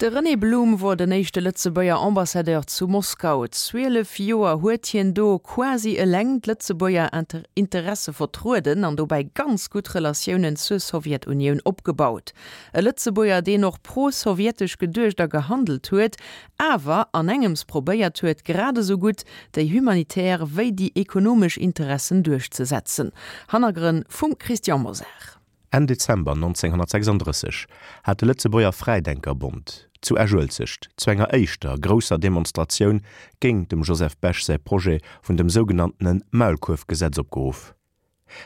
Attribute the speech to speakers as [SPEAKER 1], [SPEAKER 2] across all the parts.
[SPEAKER 1] De René Blum wor den éischte Lëtzebuerger Ambassadeur zu Moskau. 12 Joer huet hien do quasi eleng d'Lëtzebuerger Interesse vertrueden an dobäi ganz gutt Relatiounen zur Sowjetunioun opgebaut. E Lëtzebuerger, deen och pro-sowjetesch geduecht a gehandelt huet, awer an engems probéiert huet, grad esou gutt déi humanitär wéi déi ekonomesch Interessen duerchzesetzen. Hannergrënn vum Christian Mosar.
[SPEAKER 2] Enn Dezember 1936 hat de Lëtzebuerger Fräidenkerbond zu Esch-Uelzecht zu enger éischter grousser Demonstratioun géint dem Joseph Bech säi Projet vun dem sougenanntene Maulkuerfgesetz opgeruff.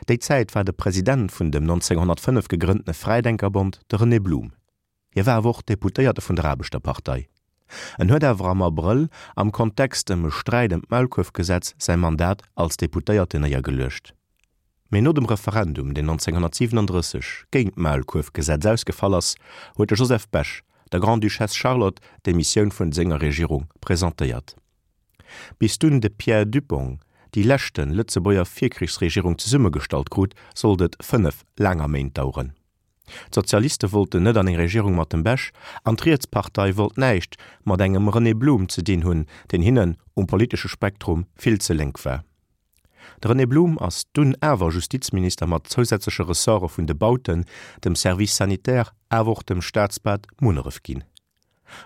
[SPEAKER 2] Déi Zäit war de President vun dem 1905 gegrënntene Fräidenkerbond de René Blum. Hie war awer och Deputéierte vun der Aarbechterpartei. En huet awer am Abrëll am Kontext ëm e Sträit ëm d'Maulkuerfgesetz säi Mandat als Deputéierten néiergeluecht. Mee no dem Referendum, deen 1937 géint d'Maulkuerfgesetz ausgefall ass, huet de Joseph Bech der Grande-Duchesse Charlotte d'Demissioun vun senger Regierung presentéiert. Bis dunn de Pierre Dupong déi leschte Lëtzebuerger Virkrichsregierung zesummegestallt krut, sollt et 5 laanger Méint daueren. D'Sozialiste wollten net an eng Regierung mat dem Bech, an d'Rietspartei wollt näischt mat engem René Blum ze dinn hunn, deen hinnen um politesche Spektrum vill ze lénk war. De René Blum ass dunn awer Justizminister mat zousätzleche Ressorte vun de Bauten, dem Service sanitaire awer och dem Staatsbad Munneref ginn.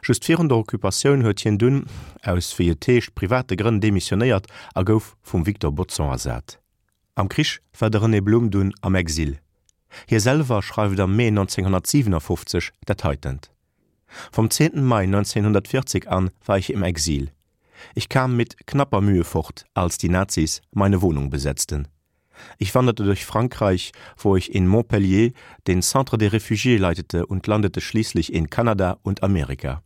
[SPEAKER 2] Just virun der Occupatioun huet hien dunn, aus wéi et heescht private Grënn demissionéiert a gouf vum Victor Bodson ersat. Am Krich war de René Blum dunn am Exil. Hie selwer schreift am Mee 1957 dat heitent: Vom 10. Mai 1940 an war ich im Exil. Ich kam mit knapper Mühe fort, als die Nazis meine Wohnung besetzten. Ich wanderte durch Frankreich, wo ich in Montpellier den Centre des Réfugiés leitete und landete schließlich in Kanada und Amerika.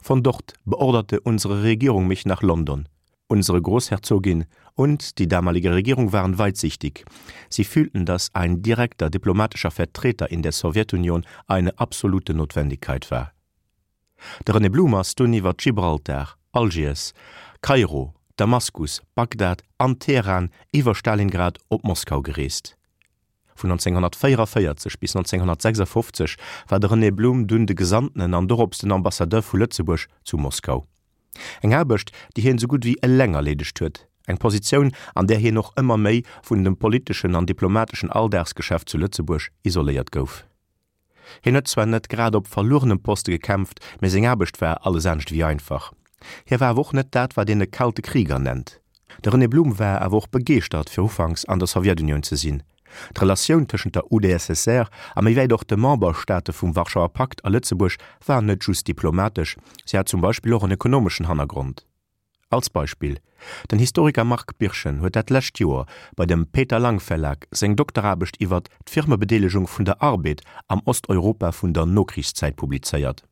[SPEAKER 2] Von dort beorderte unsere Regierung mich nach London. Unsere Großherzogin und die damalige Regierung waren weitsichtig. Sie fühlten, dass ein direkter diplomatischer Vertreter in der Sowjetunion eine absolute Notwendigkeit war. De René Blum ass dunn iwwer Gibraltar, Algiers, Kairo, Damaskus, Bagdad an Teheran iwwer Stalingrad op Moskau gereest. Vun 1944 bis 1956 war de René Blum dunn de Gesandtenen an dorops den Ambassadeur vu Lëtzebuerg zu Moskau. Eng Aarbecht, déi hien esou gutt wéi eleng erleedegt huet, eng Positioun, an där hien och ëmmer méi vun dem politeschen an diplomateschen Alldagsgeschäft zu Lëtzebuerg isoléiert gouf. Hien huet zwar net grad op verluerenem Poste gekämpft, mee seng Aarbecht war alles anescht ewéi einfach. Hie war awer och net dat, wat een e kalte Krieger nennt. De René Blum war awer och begeeschtert, fir ufanks an der Sowjetunioun ze sinn. D'Relatioun tëschent der UdSSR a méi wäit och de Memberstaate vum Warschauer Pakt a Lëtzebuerg war net just diplomatesch, se hat zum Beispill och en ekonomeschen Hannergrond. Als Beispill, Den Historiker Marc Birchen huet dat lescht Joer bei dem Peter Lang Verlag seng Dokteraarbecht iwwert d'Firmebedeelegung vun der Arbed am Osteuropa vun der Nokrichszäit publizéiert.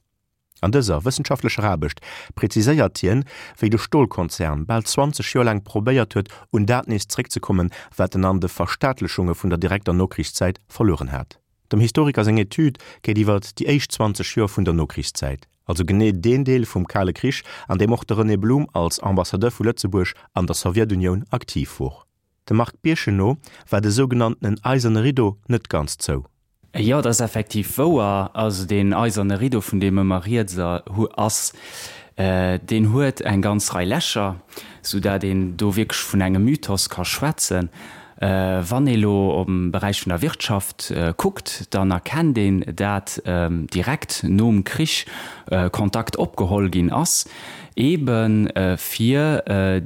[SPEAKER 2] An dëser wëssenschaftlecher Aarbecht preziséiert hien, wéi de Stolkonzern bal 20 Joer laang probéiert huet, un dat nees zréckzekommen, wat en an de Verstaatlechunge vun der direkter Nokrichszäit verlueren hat. Dem Historiker seng Etüd geet iwwer déi éischt 20 Joer vun der Nokrichszäit, also genee deen Deel vum Kale Krich, an deem och de René Blum als Ambassadeur vu Lëtzebuerg an der Sowjetunioun aktiv wor. Dem Marc Birchen no war de sougenanntenen Eiserne Rideau net ganz zou.
[SPEAKER 3] Jo, dat ass effektiv wouer. Also deen eiserne Rideau, vun deem ëmmer rieds ass, deen huet eng ganz Rei Lächer, soudatt een do wierklech vun engem Mythos ka schwätzen. Wann ee lo am Beräich vun der Wirtschaft kuckt, dann erkennt een, dat direkt nom Krich Kontakt opgeholl ginn ass, ebe fir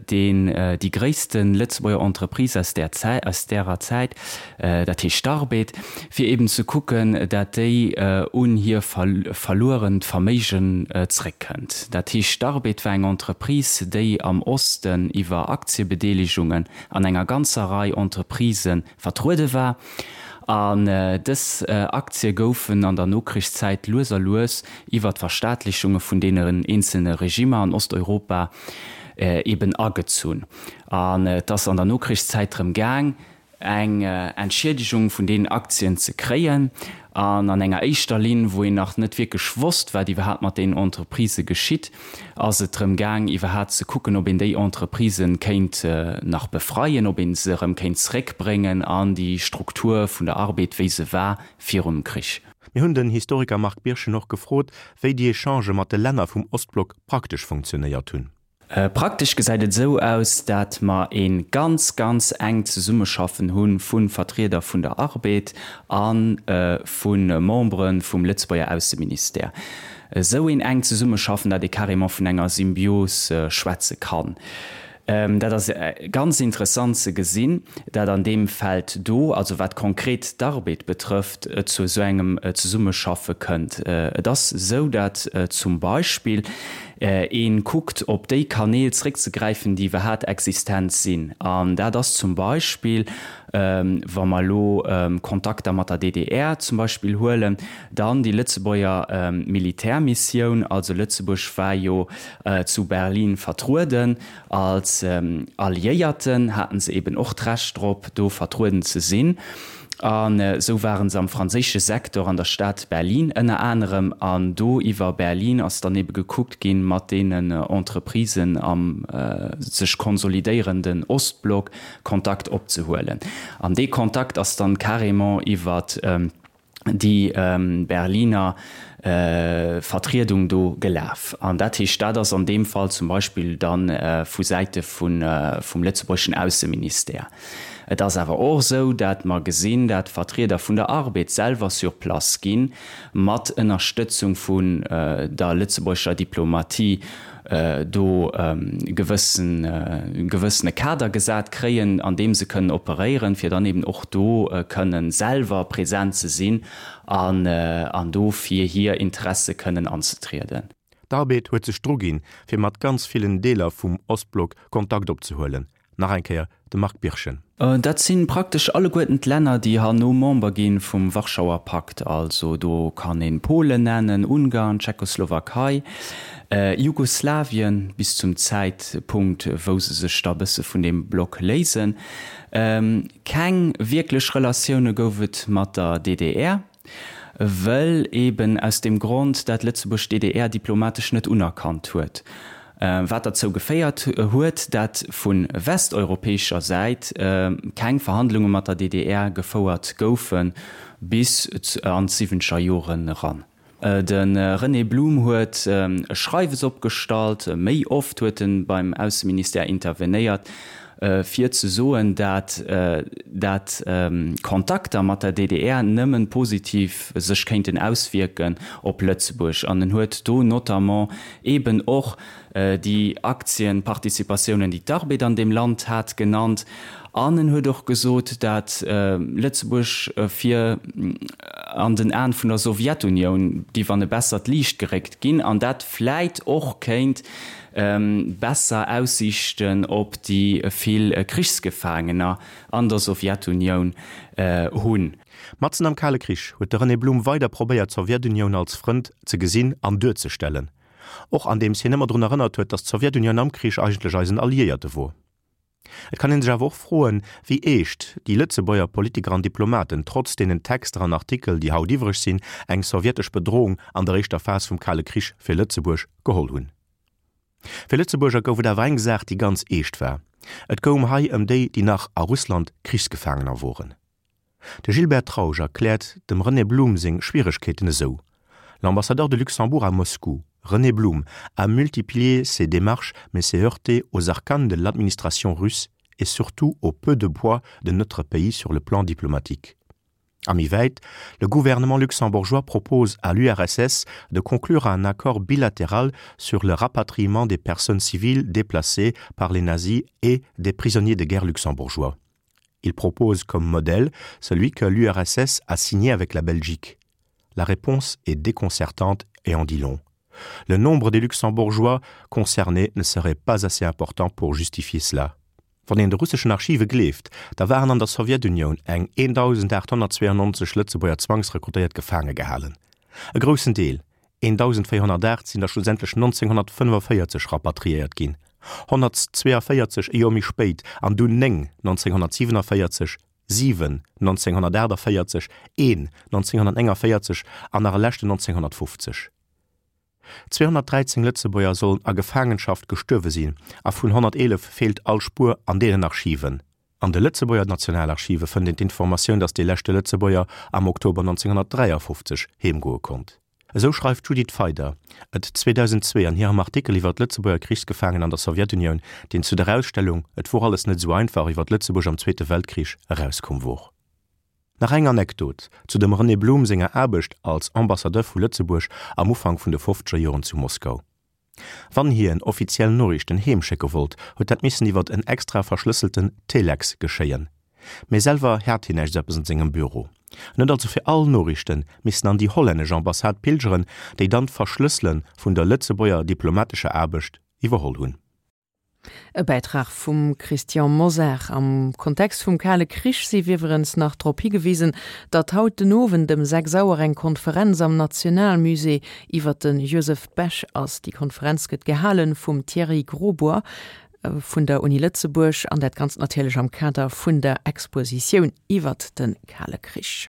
[SPEAKER 3] deen déi gréisste Lëtzebuerger Entreprise aus där Zäit, aus därer Zäit, dat heescht d'Arbed, fir eben ze kucken, dat déi un hir verluerent Verméigen zréckkënnt. Dat heescht, d'Arbed war eng Entreprise, déi am Osten iwwer Aktiebedeelegungen an enger ganzer Rei Entreprisë vertruede war. An dës Aktie goufen an der Nokrichszäit lues a lues iwwer d'Verstaatlichunge vun deenen eenzelne Regimmer an Osteuropa eben agezunn. An et ass an der Nokrichszäit drëm gaang, eng Entschiedegung vun deenen Aktien ze kréien. An an enger éischter Linn, wou een nach net wierklech wosst, wat iwwerhaapt mat deenen Entreprisë geschitt, ass et drëm gaang, iwwerhaapt ze kucken, ob een déi Entreprisë kéint nach befreien, ob ee se erëm kéint zréckbréngen an déi Struktur vun der Arbed, wéi se war virum Krich.
[SPEAKER 2] Mir hunn den Historiker Marc Birchen och gefrot, wéi déi Echangë mat de Länner vum Ostblock praktesch funktionéiert hunn.
[SPEAKER 3] Praktesch gesäit et esou aus, dat mer ee ganz, ganz enkt Zesummeschaffen hu vu Vertrieder vun der Arbed a vu Membere vum Lëtzebuerger Ausseministère. Esou een enkt Zesummeschaffen, dat ee carrément vun enger Symbios schwätze kann. Dat ass ganz interessant ze gesinn, dat an deem Feld do, also wat konkret d'Arbed betrëfft, et zu esou engem Zesummeschaffe kënnt. Et ass esou, dat zum Beispill ee kuckt, op déi Kanäl zréckzegräifen, déi iwwerhaat existent sinn. An dat ass zum Beispill, wa mer elo Kontakter mat der DDR zum Beispill huelen, dann déi Lëtzebuerger Militärmissioun. Also Lëtzebuerg war jo zu Berlin vertrueden. Als Alliéierten haten se eben och d'Recht drop, do vertrueden ze sinn. An esou waren se am franséische Sektor an der Stad Berlin ënner anerem. An do iwwer Berlin ass dann ebe gekuckt ginn, mat deenen Entreprisen am sech konsolidéierenden Ostblock Kontakt opzehuelen. An dee Kontakt ass dann carrément iwwer déi Berliner Vertriedung do gelaf. An dat heescht, dat ass an deem Fall zum Beispill da vu Säite vum lëtzebuergeschen Ausseministère. Et ass awer och esou, dat mer gesinn, dat Vertrieder vun der Arbed selwer sur place ginn, mat Ënnerstëtzung vun der lëtzebuergescher Diplomatie do gewëssen gewëssene Kader gesat kréien, an deem se kënnen operéieren, fir dann eben och do kënnen selwer present ze sinn an an do fir hir Interesse kënnen anzetrieden.
[SPEAKER 2] D'Arbed huet sech druginn, fir mat ganz villen Deeler vum Ostblock Kontakt opzehuelen, Nach eng Kéier de Marc Birchen.
[SPEAKER 3] Dat si praktesch alleguerten d'Länner, déi herno Member gi vum Warschauer Pakt. Also do kann ee Polen nennen, Ungarn, Tschechoslowakei, Jugoslawien, bis zum Zäitpunkt, wou se sech da bësse vun deem Block léisen. Keng wierklech Relatioune gouf et mat der DDR. Wëll eben aus deem Grond, dat Lëtzebuerg d'DDR diplomatesch net unerkannt huet, wat derzou geféiert huet, dat vu westeuropäescher Säit keng Verhandlunge mat der DDR gefouert goufe bis an d'siwwenzeger Joren eran. De René Blum huet e Schreiwes opgestallt, méi oft huet e beim Ausseministère intervenéiert, fir ze soen, dat dat Kontakter mat der DDR nëmmen positiv sech kéinten auswierken op Lëtzebuerg. An en huet do notamment eeben och déi Aktienparticipatiounen, déi d'Arbed an deem Land hat, genannt. An en huet och gesot, dat Lëtzebuerg fir an den Aen vun der Sowjetunioun géif an e bessert Liicht geréckt ginn an dat vläit och kéint besser Aussiichten op déi vill Krichsgefaangener an der Sowjetunioun hunn.
[SPEAKER 2] Matzen am Kale Krich huet de René Blum weider probéiert d'Sowjetunioun als Frënd ze gesinn an duerzestellen, och andeems hien ëmmer drun erënnert huet, datt d'Sowjetunioun am Krich eigentlech eisen Alliéierte wor. Et kann een sech awer och froen, wéi eescht déi Lëtzebuerger Politiker an Diplomaten, trotz deenen Texter an Artikel, déi haut iwwreg sinn, eng sowjetesch Bedrohung an der éischter Phas vum Kale Krich fir Lëtzebuerg geholl hunn. Fir Lëtzebuerger gouf et awer eng Saach, déi ganz eescht war, Et goung hei ëm déi, déi nach a Russland Krichsgefaangener woren. De Gilbert Trausch erkläert dem René Blum seng Schwieregkeeten esou: L'ambassadeur de Luxembourg à Moscou, René Blum, a multiplié ses démarches mais s'est heurté aux arcanes de l'administration russe et surtout au peu de poids de notre pays sur le plan diplomatique. A méi wäit, Le gouvernement luxembourgeois propose à l'URSS de conclure un accord bilatéral sur le rapatriement des personnes civiles déplacées par les nazis et des prisonniers de guerre luxembourgeois. Il propose comme modèle celui que l'URSS a signé avec la Belgique. La réponse est déconcertante et en dit long. Le nombre des Luxembourgeois concernés ne serait pas assez important pour justifier cela. Wann een de russeschen Archive gleeft, da waren an der Sowjetunioun eng 1.892 Lëtzebuerger zwangsrekrutéiert gefaange gehalen. E groussen Deel, 1.408, sinn der schlussendlech 1945 rapatriéiert ginn, 142 e Joer méi spéit an dunn 9 1947, 7 1948, een 1949 an nach e leschten 1950. 213 Lëtzebuerger sollen a Gefaangenschaft gestuerwe sinn a vun 111 feelt all Spuer an deenen Archiven. An de Lëtzebuerger Nationalarchive fënnt een d'Informatioun, datt dee leschte Lëtzebuerger am Oktober 1953 heemgoe konnt. Esou schreift d'Judith Feider et 2002 an hirem Artikel iwwer d'Lëtzebuerger Krichsgefaangen an der Sowjetunioun, deen zu der Ausstellung Et wor alles net esou einfach iwwer Lëtzebuerg am Zweete Weltkrich erauskomm wor. Nach eng Anekdot zu dem René Blum senger Aarbecht als Ambassadeur vu Lëtzebuerg am Ufank vun de fofzeger Joren zu Moskau. Wann hien offiziell Noriichten heem schécke wollt, huet dat missen iwwert en extra verschlësselten Telex geschéien. Mee selwer hat hien näischt eppes an sengem Büro. En huet also fir all Noriichten missen an déi hollännesch Ambassade pilgeren, déi dann d'Verschlëssele vun der Lëtzebuerger diplomatescher Aarbecht iwwerholl hunn.
[SPEAKER 1] E Bäitrag vum Christian Mosar. Am Kontext vum Kale Krich sief iwwerens nach drop higewisen, datt haut den Owend ëm 6 Auer eng Konferenz am Nationalmusée iwwer de Joseph Bech ass. Déi Konferenz gëtt gehale vum Thierry Grosbois vun der Uni Lëtzebuerg an dat Ganzt natierlech am Kader vun der Expositioun iwwert de Kale Krich.